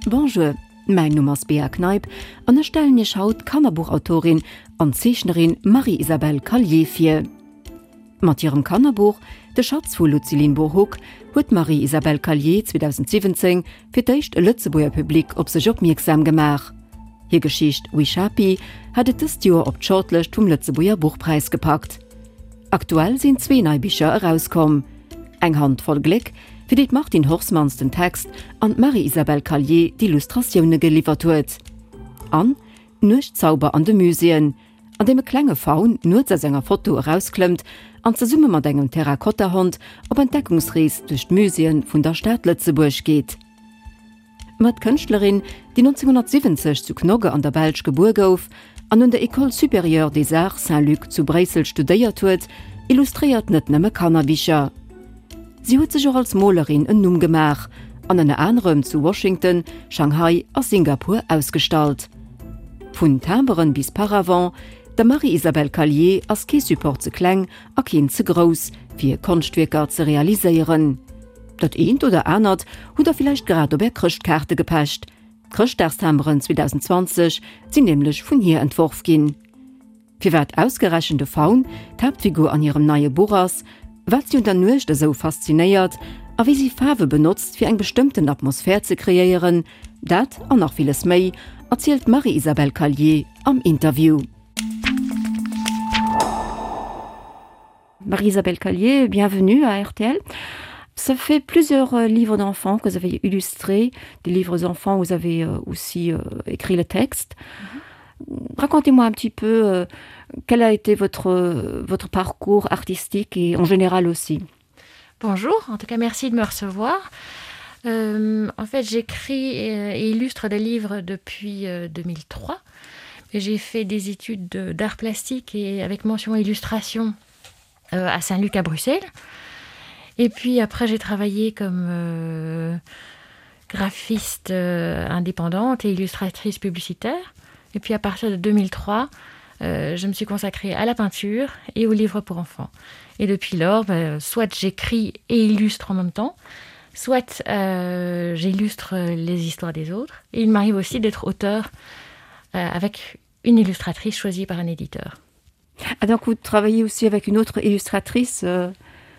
Bonjour, mäin Numm ass Bea Kneip an ech stellen Iech haut d'Kannerbuchautorin an Zeechnerin Marie-Isabelle Callier vir. Mat hirem Kannerbuch De Schatz vu Lucilinburhuc huet d'Marie-Isabelle Callier 2017 fir d'éischt e Lëtzebuerger Public op sech opmierksam gemaach. Hir Geschicht Wishapi hat et dëst Joer op d'Shortlëscht vum Lëtzebuerger Buchpräis gepackt. Aktuell sinn zwee nei Bicher erauskomm, Eng Hand voll Gléck, fir déi d'Martine Horsmans den Text an d'Marie-Isabelle Callier d'Illustratioune geliwwert huet, an Nuechtzauber an de Muséeën, an deem e klenge Faun nuets aus enger Foto erausklëmmt an zesumme mat engem Terrakotta-Hond op Entdeckungsrees duerch d'Muséeë vun der Stad Lëtzebuerg geet. Ma d'Kënschtlerin, déi 1970 zu Knokke an der Belsch gebuer gouf an un der École supérieure des arts Saint-Luc zu Bréissel studéiert huet, illustréiert net nëmme Kannerbicher. Si huet sech och als Molerin en Numm gemaach an ënner anerem zu Washington, Shanghai a Singapur ausgestallt. Vun Timberen bis Paravent, der Marie-Isabelle Callier ass kee Support ze kleng a keen ze grouss, fir Konschtwierker ze realiséieren. Dat eent oder anert hutt der villäicht grad op är Chrëschtkaarte gepecht. D'Chrëschtdagstimberen 2020 sinn nämlech vun hir entworf ginn. Firwat ausgerechent de Faun d'Haaptfigur an hirem neie Buch ass, wat si un der Nuecht esou faszinéiert a wéi si Faarwe benotzt fir eng bestëmmten Atmosphär ze kreéieren, dat an nach villes méi erzielt d'Marie-Isabelle Callier am Interview. Marie-Isabelle Callier, bienvenue à RTL. Ça fait plusieurs euh, livres d'enfants que vous avez illustrés, des livres enfants où vous avez euh, aussi euh, écrit le texte. Mm -hmm. Racontez-moi un petit peu quel a été votre, votre parcours artistique et en général aussi. Bonjour, en tout cas merci de me recevoir. Euh, en fait, j'écris et illustre des livres depuis euh, 2003. J'ai fait des études d'art plastique et avec mention illustration euh, à Saint-Luc à Bruxelles. Et puis après, j'ai travaillé comme euh, graphiste euh, indépendante et illustratrice publicitaire. Et puis à partir de 2003, euh, je me suis consacrée à la peinture et aux livres pour enfants. Et depuis lors, ben, soit j'écris et illustre en même temps, soit euh, j'illustre les histoires des autres. Et il m'arrive aussi d'être auteur euh, avec une illustratrice choisie par un éditeur. Ah, donc vous travaillez aussi avec une autre illustratrice euh,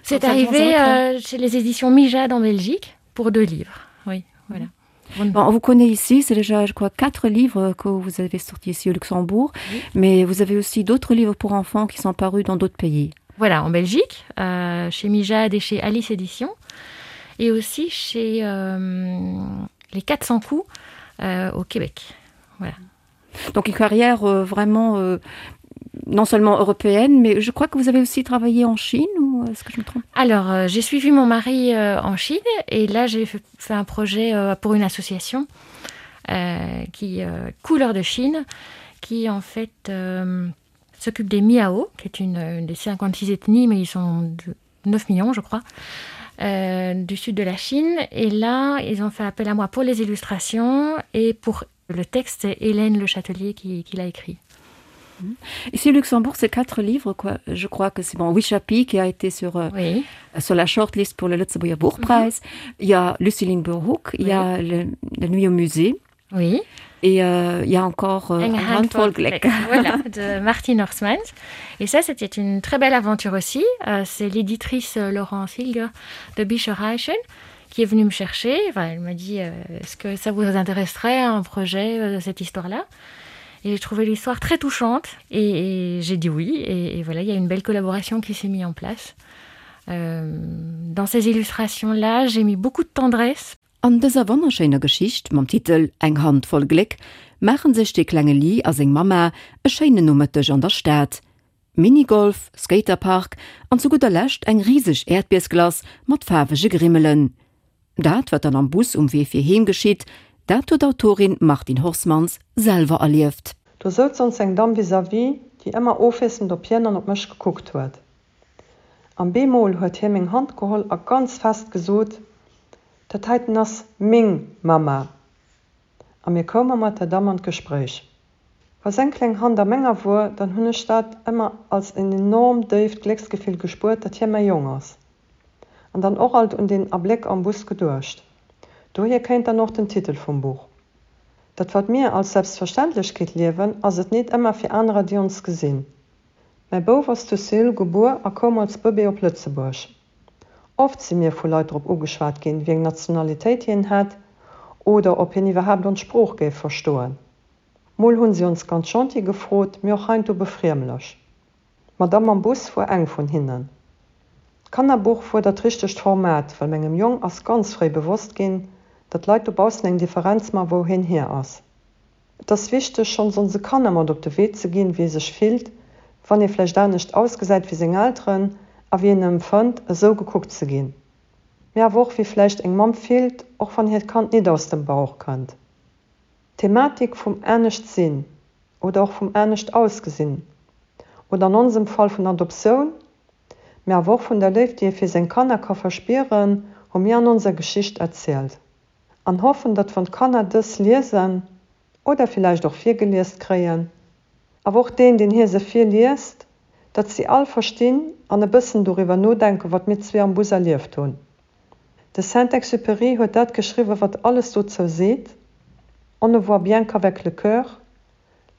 C'est arrivé euh, chez les éditions Mijade en Belgique pour deux livres. Oui, voilà. Bon, on vous connaît ici, c'est déjà je crois quatre livres que vous avez sortis ici au Luxembourg, oui. mais vous avez aussi d'autres livres pour enfants qui sont parus dans d'autres pays. Voilà, en Belgique, euh, chez Mijade et chez Alice Édition, et aussi chez euh, les 400 coups euh, au Québec. Voilà. Donc une carrière euh, vraiment euh, non seulement européenne, mais je crois que vous avez aussi travaillé en Chine ou est-ce que je me trompe Alors euh, j'ai suivi mon mari euh, en Chine et là j'ai fait un projet euh, pour une association euh, qui euh, couleur de Chine qui en fait euh, s'occupe des Miao, qui est une, une des 56 ethnies mais ils sont de 9 millions je crois euh, du sud de la Chine et là ils ont fait appel à moi pour les illustrations et pour le texte c'est Hélène Le Châtelier qui, qui l'a écrit. Mhm. Ici au Luxembourg, c'est quatre livres quoi. Je crois que c'est bon Wishapi qui a été sur, euh, oui. sur la shortlist pour le Lützeburger Buchpreis. Mm -hmm. Il y a Luciline Burhoek, il oui. y a le, la nuit au musée. Oui. Et euh, il y a encore euh, voilà, de Martin Horsmans. Et ça, c'était une très belle aventure aussi. Euh, c'est l'éditrice euh, Laurence Hilger de Bicherreichen qui est venue me chercher. Enfin, elle m'a dit euh, est-ce que ça vous intéresserait un projet euh, cette histoire-là Et j'ai trouvé l'histoire très touchante et, et j'ai dit oui. Et, et voilà, il y a une belle collaboration qui s'est mise en place. Euh, dans ces illustrations-là, j'ai mis beaucoup de tendresse. An dëser wonnerschéiner Geschicht mam Titel Eng Hand voll Gléck maachen sech de klenge Lee a seng Mamma e schéinen Nomëtteg an der Stad. Minigolf, Skaterpark an zu gudder Lescht eng riseg Äerdbiersglace mat faarwege Grimmelen. Dat, wat dann am Bus um Wee fir heem geschitt, dat huet d'Autorin Martine Horsmans selwer erlieft. Do souz ons eng Damm vis-à-vis, déi ëmmer ofwiesselnd op hien an op mech gekuckt huet. An bemol huet hie meng Hand geholl a ganz fest gesot, Dat heiten ass meng Mamma. A mir koume mat der Damm an d'Gespréich. Wa seng kleng Hand a menger wor, dann hunn ech dat ëmmer als en enorm déift Glécksgefill gespuert, datt hie mäi Jong ass. An dann och alt un deen Abléck am Bus geduecht. Dohier kéint dann och den Titel vum Buch. Dat wat mir als Selbstverständlechkeet liewen, ass et nit ëmmer fir anerer déi ons gesinn. Mäi Bouf ass zu Seoul gebuer a koum als Bëbee op Lëtzebuerg. Oft si mir vu Leit drop ugeschwat ginn, wéi eng Nationalitéit hien hätt oder ob hien iwwerhaapt ons Sprooch géif verstoen. Mol hunn si ons ganz gentil gefrot, mee och heiansdo befriemlech. D'Madame am Bus wuar eng vun hinnen. D'Kannerbuch wuar dat richtegt Format, well mengem Jong ass ganz fréi bewosst ginn, datt Leit dobaussen eng Differenz man, wou hien hier ass. Et ass wichteg, schonns onse Kanner mat op de Wee ze ginn, wéi ee sech fillt, wann ee vläicht anescht ausgesäit wéi seng Elteren a wéi een empfënnt, esou gekuckt ze ginn. Mee awer och, wéi vläicht eng Mamm fillt, och wann hiert Kand nit aus dem Bauch kënnt. D'Thematik vum anescht sinn oder och vum anescht ausgesinn oder an onsem Fall vun Adoptioun, mee awer och vun der Léift, déi ee fir seng Kanner ka verspieren, hu mir an onser Geschicht erzielt an hoffen, datt wann d'Kanner dës liesen oder villäicht och virgeliest kréien, awer och deen, deen hir se virliest, datt si all verstinn an e bëssen doriwwer nodenken, wat mir zwee am Bus erlieft hunn. De Saint-Exupéry huet dat geschriwwen, wat alles dozou seet, On ne voit bien qu'avec le cœur,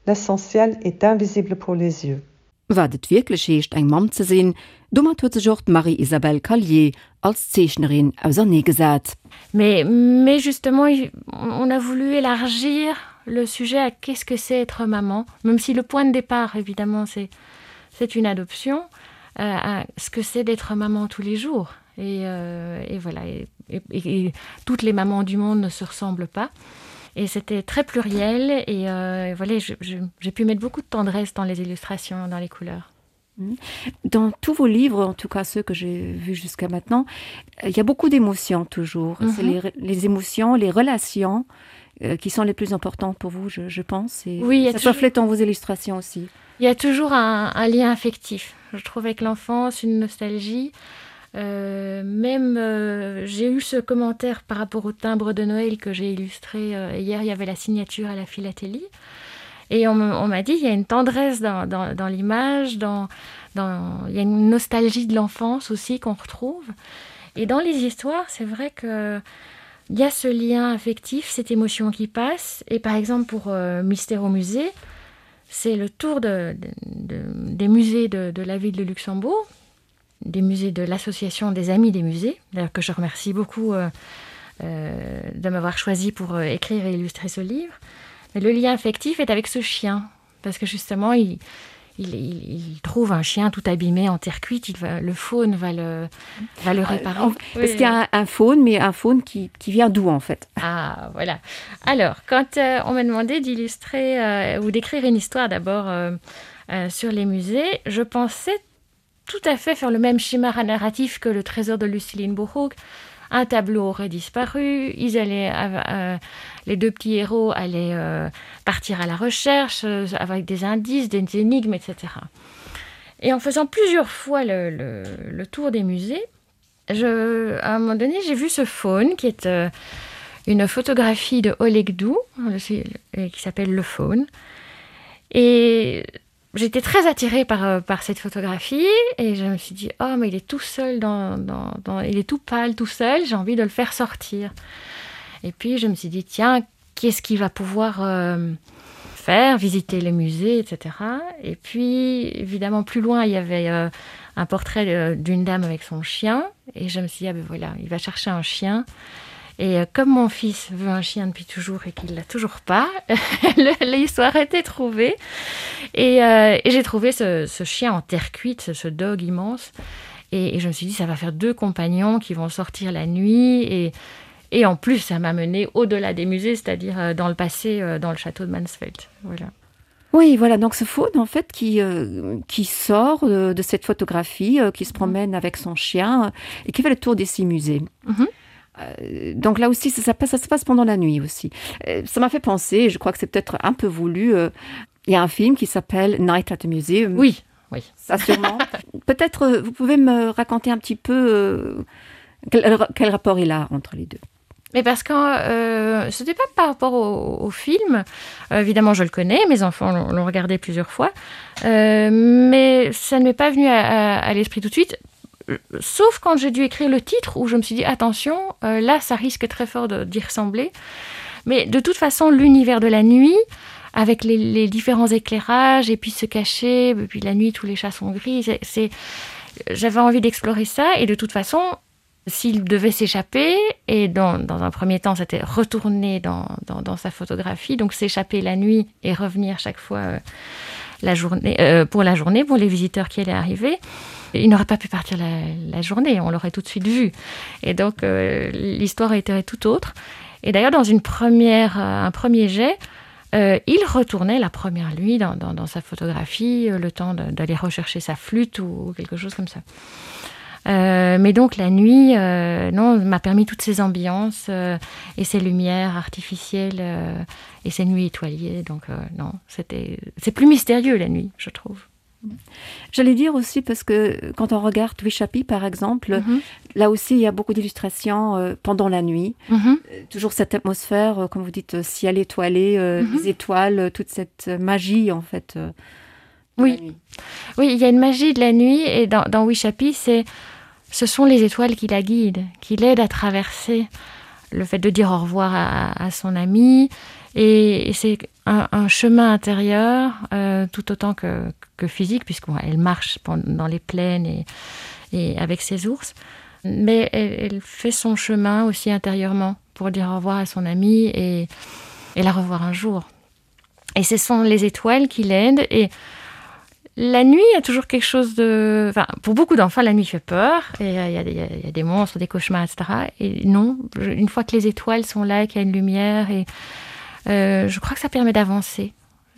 l'essentiel est invisible pour les yeux. Wat et wierklech heescht, eng Mamm ze sinn, domat huet sech och d'Marie-Isabelle Callier als Zeechnerin auserneegesat. Mais, mais justement, on a voulu élargir le sujet à qu'est-ce que c'est être maman, même si le point de départ, évidemment, c'est, c'est une adoption, euh, à ce que c'est d'être maman tous les jours. Et, euh, et voilà, et, et, et toutes les mamans du monde ne se ressemblent pas. Et c'était très pluriel et, euh, et voilà, j'ai pu mettre beaucoup de tendresse dans les illustrations, dans les couleurs. Mmh. Dans tous vos livres, en tout cas ceux que j'ai vus jusqu'à maintenant, il y a beaucoup d'émotions toujours. Mm -hmm. les, les émotions, les relations euh, qui sont les plus importantes pour vous, je, je pense. Et oui, ça se reflète dans vos illustrations aussi. Il y a toujours un, un lien affectif. Je trouve avec l'enfance une nostalgie. Euh, même euh, j'ai eu ce commentaire par rapport au timbre de Noël que j'ai illustré euh, hier, il y avait la signature à la philatélie. Et on m'a dit il y a une tendresse dans, dans, dans l'image, dans, dans, il y a une nostalgie de l'enfance aussi qu'on retrouve. Et dans les histoires, c'est vrai que il y a ce lien affectif, cette émotion qui passe. Et par exemple pour euh, Mystère au musée, c'est le tour de, de, de, des musées de, de la ville de Luxembourg, des musées de l'association des amis des musées, d'ailleurs que je remercie beaucoup euh, euh, de m'avoir choisi pour euh, écrire et illustrer ce livre. Mais le lien affectif est avec ce chien, parce que justement, il, il, il, il trouve un chien tout abîmé en terre cuite, il va, le faune va le, va le réparer. Euh, oui. Parce qu'il y a un, un faune, mais un faune qui, qui vient d'où en fait Ah voilà. Alors, quand euh, on m'a demandé d'illustrer euh, ou d'écrire une histoire d'abord euh, euh, sur les musées, je pensais tout à fait faire le même schéma narratif que le trésor de Luciline Bourrouk. Un tableau aurait disparu, ils allaient, euh, euh, les deux petits héros allaient euh, partir à la recherche euh, avec des indices, des énigmes, etc. Et en faisant plusieurs fois le, le, le tour des musées, je, à un moment donné, j'ai vu ce faune qui est euh, une photographie de Oleg Dou, qui s'appelle le faune. Et j'étais très attirée par, euh, par cette photographie et je me suis dit oh mais il est tout seul dans, dans, dans il est tout pâle tout seul j'ai envie de le faire sortir et puis je me suis dit tiens qu'est-ce qu'il va pouvoir euh, faire visiter les musées etc et puis évidemment plus loin il y avait euh, un portrait euh, d'une dame avec son chien et je me suis dit ah ben voilà il va chercher un chien et euh, comme mon fils veut un chien depuis toujours et qu'il l'a toujours pas l'histoire était trouvée et, euh, et j'ai trouvé ce, ce chien en terre cuite ce, ce dog immense et, et je me suis dit ça va faire deux compagnons qui vont sortir la nuit et et en plus ça m'a mené au delà des musées c'est à dire euh, dans le passé euh, dans le château de Mansfeld voilà Oui, voilà donc ce faune en fait qui, euh, qui sort de, de cette photographie, euh, qui se mhm. promène avec son chien et qui fait le tour des six musées. Mm -hmm. Euh, donc là aussi ça, ça, passe, ça se passe pendant la nuit aussi. Euh, ça m'a fait penser, je crois que c'est peut-être un peu voulu, euh, il y a un film qui s'appelle Night at the Museum. Oui, oui. Ça sûrement. peut-être euh, vous pouvez me raconter un petit peu euh, quel, quel rapport il a entre les deux. Mais parce que euh, ce n'était pas par rapport au, au film, euh, évidemment je le connais, mes enfants l'ont regardé plusieurs fois, euh, mais ça ne m'est pas venu à, à, à l'esprit tout de suite, sauf quand j'ai dû écrire le titre où je me suis dit attention, euh, là ça risque très fort d'y ressembler. Mais de toute façon, l'univers de la nuit, avec les, les différents éclairages et puis se cacher, et puis la nuit, tous les chats sont gris, c'est j'avais envie d'explorer ça et de toute façon, s'il devait s'échapper et dans, dans un premier temps c'était retourner dans, dans, dans sa photographie donc s'échapper la nuit et revenir chaque fois euh, la journée euh, pour la journée pour les visiteurs qui allaient arriver il n'aurait pas pu partir la, la journée on l'aurait tout de suite vu et donc euh, l'histoire était tout autre et d'ailleurs dans une première euh, un premier jet euh, il retournait la première nuit dans, dans, dans sa photographie euh, le temps d'aller rechercher sa flûte ou quelque chose comme ça et Euh, mais donc la nuit euh, non m'a permis toutes ces ambiances euh, et ces lumières artificielles euh, et ces nuits étoilées donc euh, non c'était c'est plus mystérieux la nuit je trouve J'allais dire aussi parce que quand on regarde Wichapi par exemple, mm -hmm. là aussi il y a beaucoup d'illustrations euh, pendant la nuit. Mm -hmm. Toujours cette atmosphère, euh, comme vous dites, euh, ciel étoilé, euh, mm -hmm. les étoiles, toute cette magie en fait. Euh, oui. Oui, il y a une magie de la nuit et dans, dans Wichapi, c'est ce sont les étoiles qui la guident, qui l'aident à traverser le fait de dire au revoir à, à son ami et, et c'est un, un chemin intérieur euh, tout autant que, que physique puisqu'elle marche dans les plaines et, et avec ses ours mais elle, elle fait son chemin aussi intérieurement pour dire au revoir à son ami et, et la revoir un jour et ce sont les étoiles qui l'aident et la nuit a toujours quelque chose de enfin, pour beaucoup d'enfants la nuit fait peur et il euh, y, y, y a des monstres des cauchemars etc et non je, une fois que les étoiles sont là qu'il y a une lumière et euh, je crois que ça permet d'avancer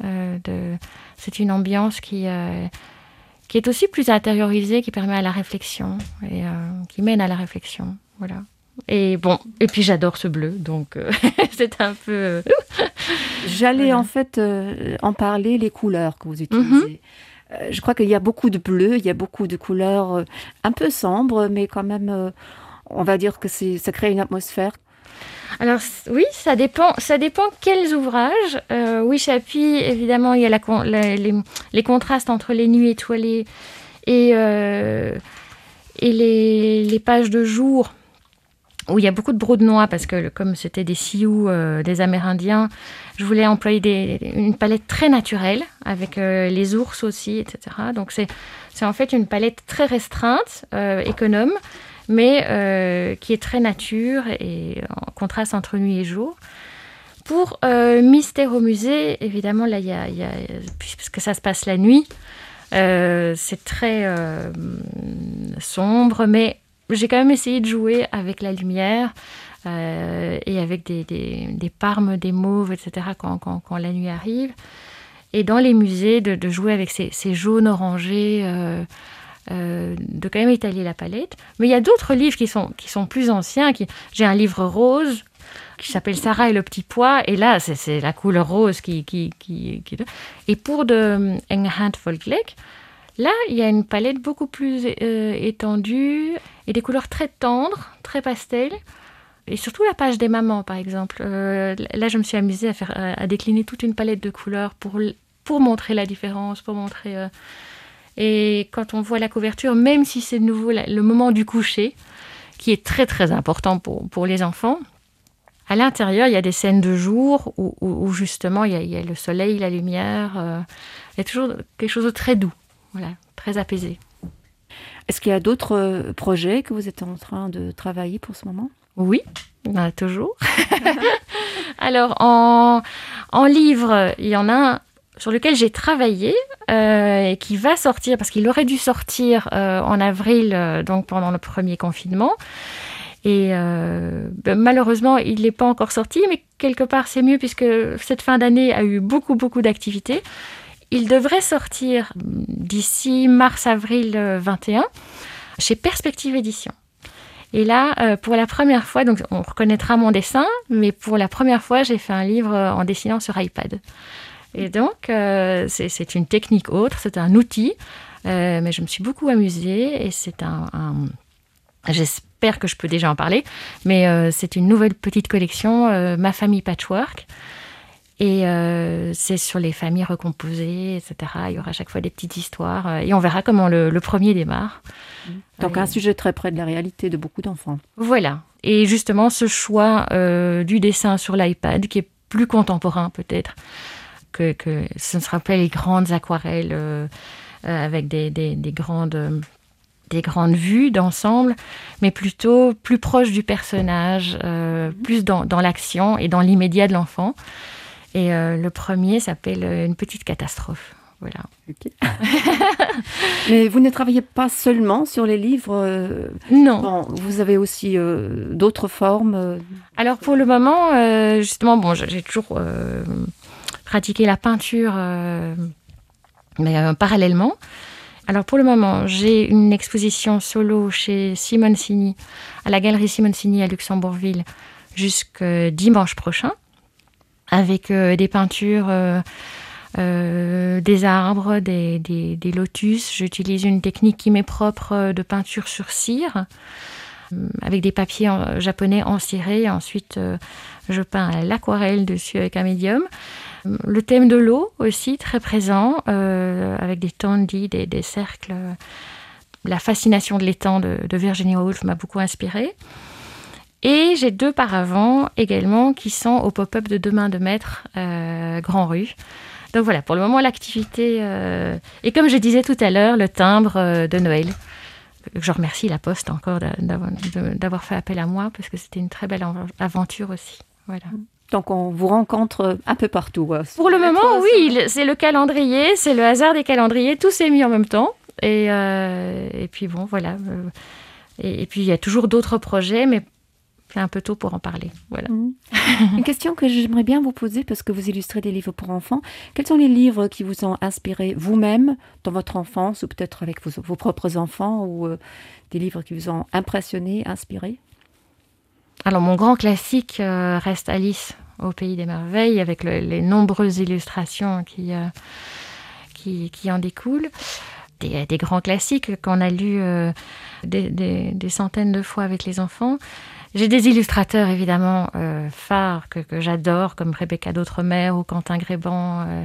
euh, de c'est une ambiance qui euh, qui est aussi plus intériorisée qui permet à la réflexion et euh, qui mène à la réflexion voilà et bon et puis j'adore ce bleu donc euh, c'est un peu euh, j'allais voilà. en fait euh, en parler les couleurs que vous utilisez mm -hmm. Euh, je crois qu'il y a beaucoup de bleu, il y a beaucoup de couleurs euh, un peu sombres, mais quand même euh, on va dire que ça crée une atmosphère. Alors oui, ça dépend, ça dépend quels ouvrages. Euh, oui, Chapi, évidemment, il y a la, la, les, les contrastes entre les nuits étoilées et, euh, et les, les pages de jour où il y a beaucoup de brou de noix parce que comme c'était des sioux euh, des Amérindiens, je voulais employer des, une palette très naturelle avec euh, les ours aussi, etc. Donc c'est en fait une palette très restreinte, euh, économe, mais euh, qui est très nature et en contraste entre nuit et jour. Pour euh, Mystère au musée, évidemment là il y a, y a, puisque ça se passe la nuit, euh, c'est très euh, sombre, mais j'ai quand même essayé de jouer avec la lumière euh, et avec des, des, des parmes, des mauves, etc. quand, quand, quand la nuit arrive. Et dans les musées, de, de jouer avec ces, ces jaunes orangés, euh, euh, de quand même étaler la palette. Mais il y a d'autres livres qui sont, qui sont plus anciens. Qui... J'ai un livre rose qui s'appelle Sarah et le petit pois. Et là, c'est la couleur rose qui, qui, qui, qui... Et pour de Enghand Folklake, Là, il y a une palette beaucoup plus euh, étendue et des couleurs très tendres, très pastel. Et surtout la page des mamans, par exemple. Euh, là, je me suis amusée à, faire, à, à décliner toute une palette de couleurs pour, pour montrer la différence, pour montrer... Euh... Et quand on voit la couverture, même si c'est de nouveau la, le moment du coucher, qui est très très important pour, pour les enfants, à l'intérieur, il y a des scènes de jour où, où, où justement il y, a, il y a le soleil, la lumière, euh, il y a toujours quelque chose de très doux. Voilà, très apaisé. Est-ce qu'il y a d'autres euh, projets que vous êtes en train de travailler pour ce moment Oui, il y en a toujours. Alors en, en livre, il y en a un sur lequel j'ai travaillé euh, et qui va sortir parce qu'il aurait dû sortir euh, en avril euh, donc pendant le premier confinement. Et euh, ben, malheureusement, il n'est pas encore sorti, mais quelque part c'est mieux puisque cette fin d'année a eu beaucoup beaucoup d'activités. Il devrait sortir d'ici mars-avril 21 chez Perspective Édition. Et là, euh, pour la première fois, donc on reconnaîtra mon dessin, mais pour la première fois, j'ai fait un livre en dessinant sur iPad. Et donc, euh, c'est une technique autre, c'est un outil, euh, mais je me suis beaucoup amusée et c'est un, un j'espère que je peux déjà en parler, mais euh, c'est une nouvelle petite collection, euh, Ma famille patchwork. Et euh, c'est sur les familles recomposées, etc. Il y aura à chaque fois des petites histoires euh, et on verra comment le, le premier démarre. Donc euh, un sujet très près de la réalité de beaucoup d'enfants. Voilà. Et justement ce choix euh, du dessin sur l'iPad qui est plus contemporain peut-être que, que ce ne sera pas les grandes aquarelles euh, euh, avec des, des, des grandes euh, des grandes vues d'ensemble, mais plutôt plus proche du personnage, euh, plus dans, dans l'action et dans l'immédiat de l'enfant. Et euh, le premier s'appelle euh, une petite catastrophe. Voilà. Okay. Mais vous ne travaillez pas seulement sur les livres euh, Non. Bon, vous avez aussi euh, d'autres formes. Euh. Alors pour le moment, euh, justement, bon, j'ai toujours euh, pratiqué la peinture euh, mais euh, parallèlement. Alors pour le moment, j'ai une exposition solo chez Simone Sini, à la galerie Simone Sini à Luxembourgville jusque dimanche prochain avec euh, des peintures euh, euh, des arbres, des, des, des lotus. J'utilise une technique qui m'est propre euh, de peinture sur cire euh, avec des papiers en, euh, japonais encirés. Ensuite, euh, je peins à l'aquarelle dessus avec un médium. Le thème de l'eau aussi très présent euh, avec des tendis, des, des cercles. La fascination de l'étang de, de Virginia Woolf m'a beaucoup inspirée. Et j'ai deux paravents également qui sont au pop-up de demain de maître euh, Grand Rue. Donc voilà, pour le moment l'activité euh, et comme je disais tout à l'heure, le timbre euh, de Noël. Je remercie la Poste encore d'avoir fait appel à moi parce que c'était une très belle aventure aussi. Voilà. Donc on vous rencontre un peu partout. Pour le moment, oui, c'est le calendrier, c'est le hasard des calendriers, tout s'est mis en même temps. Et, euh, et puis bon, voilà. Et, et puis il y a toujours d'autres projets, mais c'est un peu tôt pour en parler. Voilà. Mmh. Une question que j'aimerais bien vous poser parce que vous illustrez des livres pour enfants. Quels sont les livres qui vous ont inspiré vous-même dans votre enfance ou peut-être avec vos, vos propres enfants ou euh, des livres qui vous ont impressionné, inspiré? Alors mon grand classique euh, reste Alice au pays des merveilles avec le, les nombreuses illustrations qui, euh, qui, qui en découlent. Des, des grands classiques qu'on a lus euh, des, des, des centaines de fois avec les enfants. J'ai des illustrateurs évidemment euh, phares que, que j'adore comme Rebecca d'Outremer ou Quentin Gréban euh,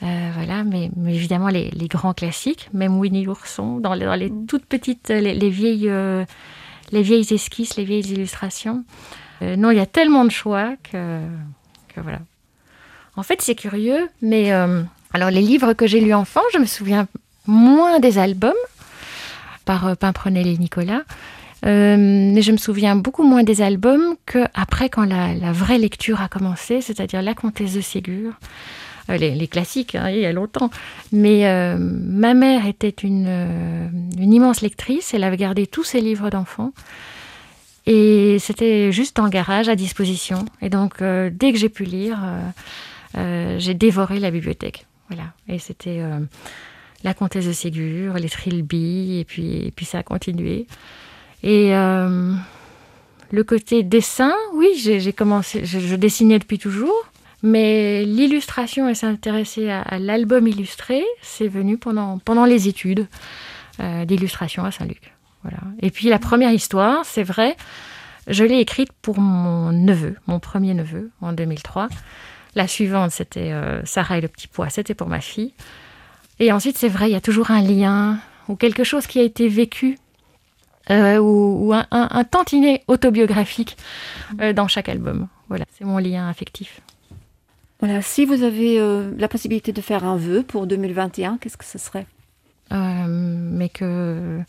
euh, voilà mais, mais évidemment les, les grands classiques même Winnie l'ourson dans les, dans les mm. toutes petites les, les vieilles euh, les vieilles esquisses les vieilles illustrations euh, non il y a tellement de choix que, que voilà en fait c'est curieux mais euh, alors les livres que j'ai lu enfant je me souviens moins des albums par euh, Pimprenel et Nicolas euh, mais je me souviens beaucoup moins des albums que après quand la, la vraie lecture a commencé c'est à dire la comtesse de Ségur euh, les, les classiques hein, il y a longtemps mais euh, ma mère était une, euh, une immense lectrice elle avait gardé tous ses livres d'enfants et c'était juste en garage à disposition et donc euh, dès que j'ai pu lire euh, euh, j'ai dévoré la bibliothèque voilà et c'était euh, la comtesse de Ségur les trilby et puis et puis ça a continué et euh, le côté dessin oui j'ai commencé je, je dessinais depuis toujours mais l'illustration et s'intéresser à, à l'album illustré c'est venu pendant pendant les études euh, d'illustration à Saint-Luc voilà et puis la première histoire c'est vrai je l'ai écrite pour mon neveu mon premier neveu en 2003 la suivante c'était euh, Sarah et le petit pois c'était pour ma fille et ensuite c'est vrai il y a toujours un lien ou quelque chose qui a été vécu euh, ou, ou un, un, un tantinet autobiographique euh, dans chaque album. Voilà, c'est mon lien affectif. Voilà, si vous avez euh, la possibilité de faire un vœu pour 2021, qu'est-ce que ce serait euh, Mais que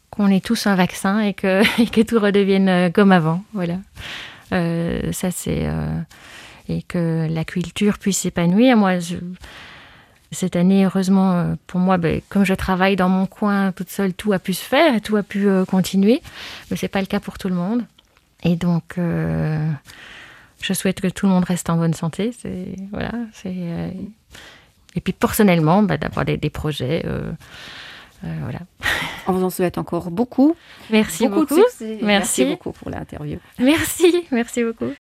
qu'on ait tous un vaccin et que, et que tout redevienne euh, comme avant. Voilà. Euh, ça c'est euh, et que la culture puisse s'épanouir. Moi, je, cette année heureusement euh, pour moi ben, comme je travaille dans mon coin toute seule tout a pu se faire et tout a pu euh, continuer mais c'est pas le cas pour tout le monde et donc euh, je souhaite que tout le monde reste en bonne santé c'est voilà c'est euh, et puis personnellement d'avoir des, des projets euh, euh, voilà on vous en souhaite encore beaucoup merci beaucoup, beaucoup. merci. merci beaucoup pour l'interview merci merci beaucoup.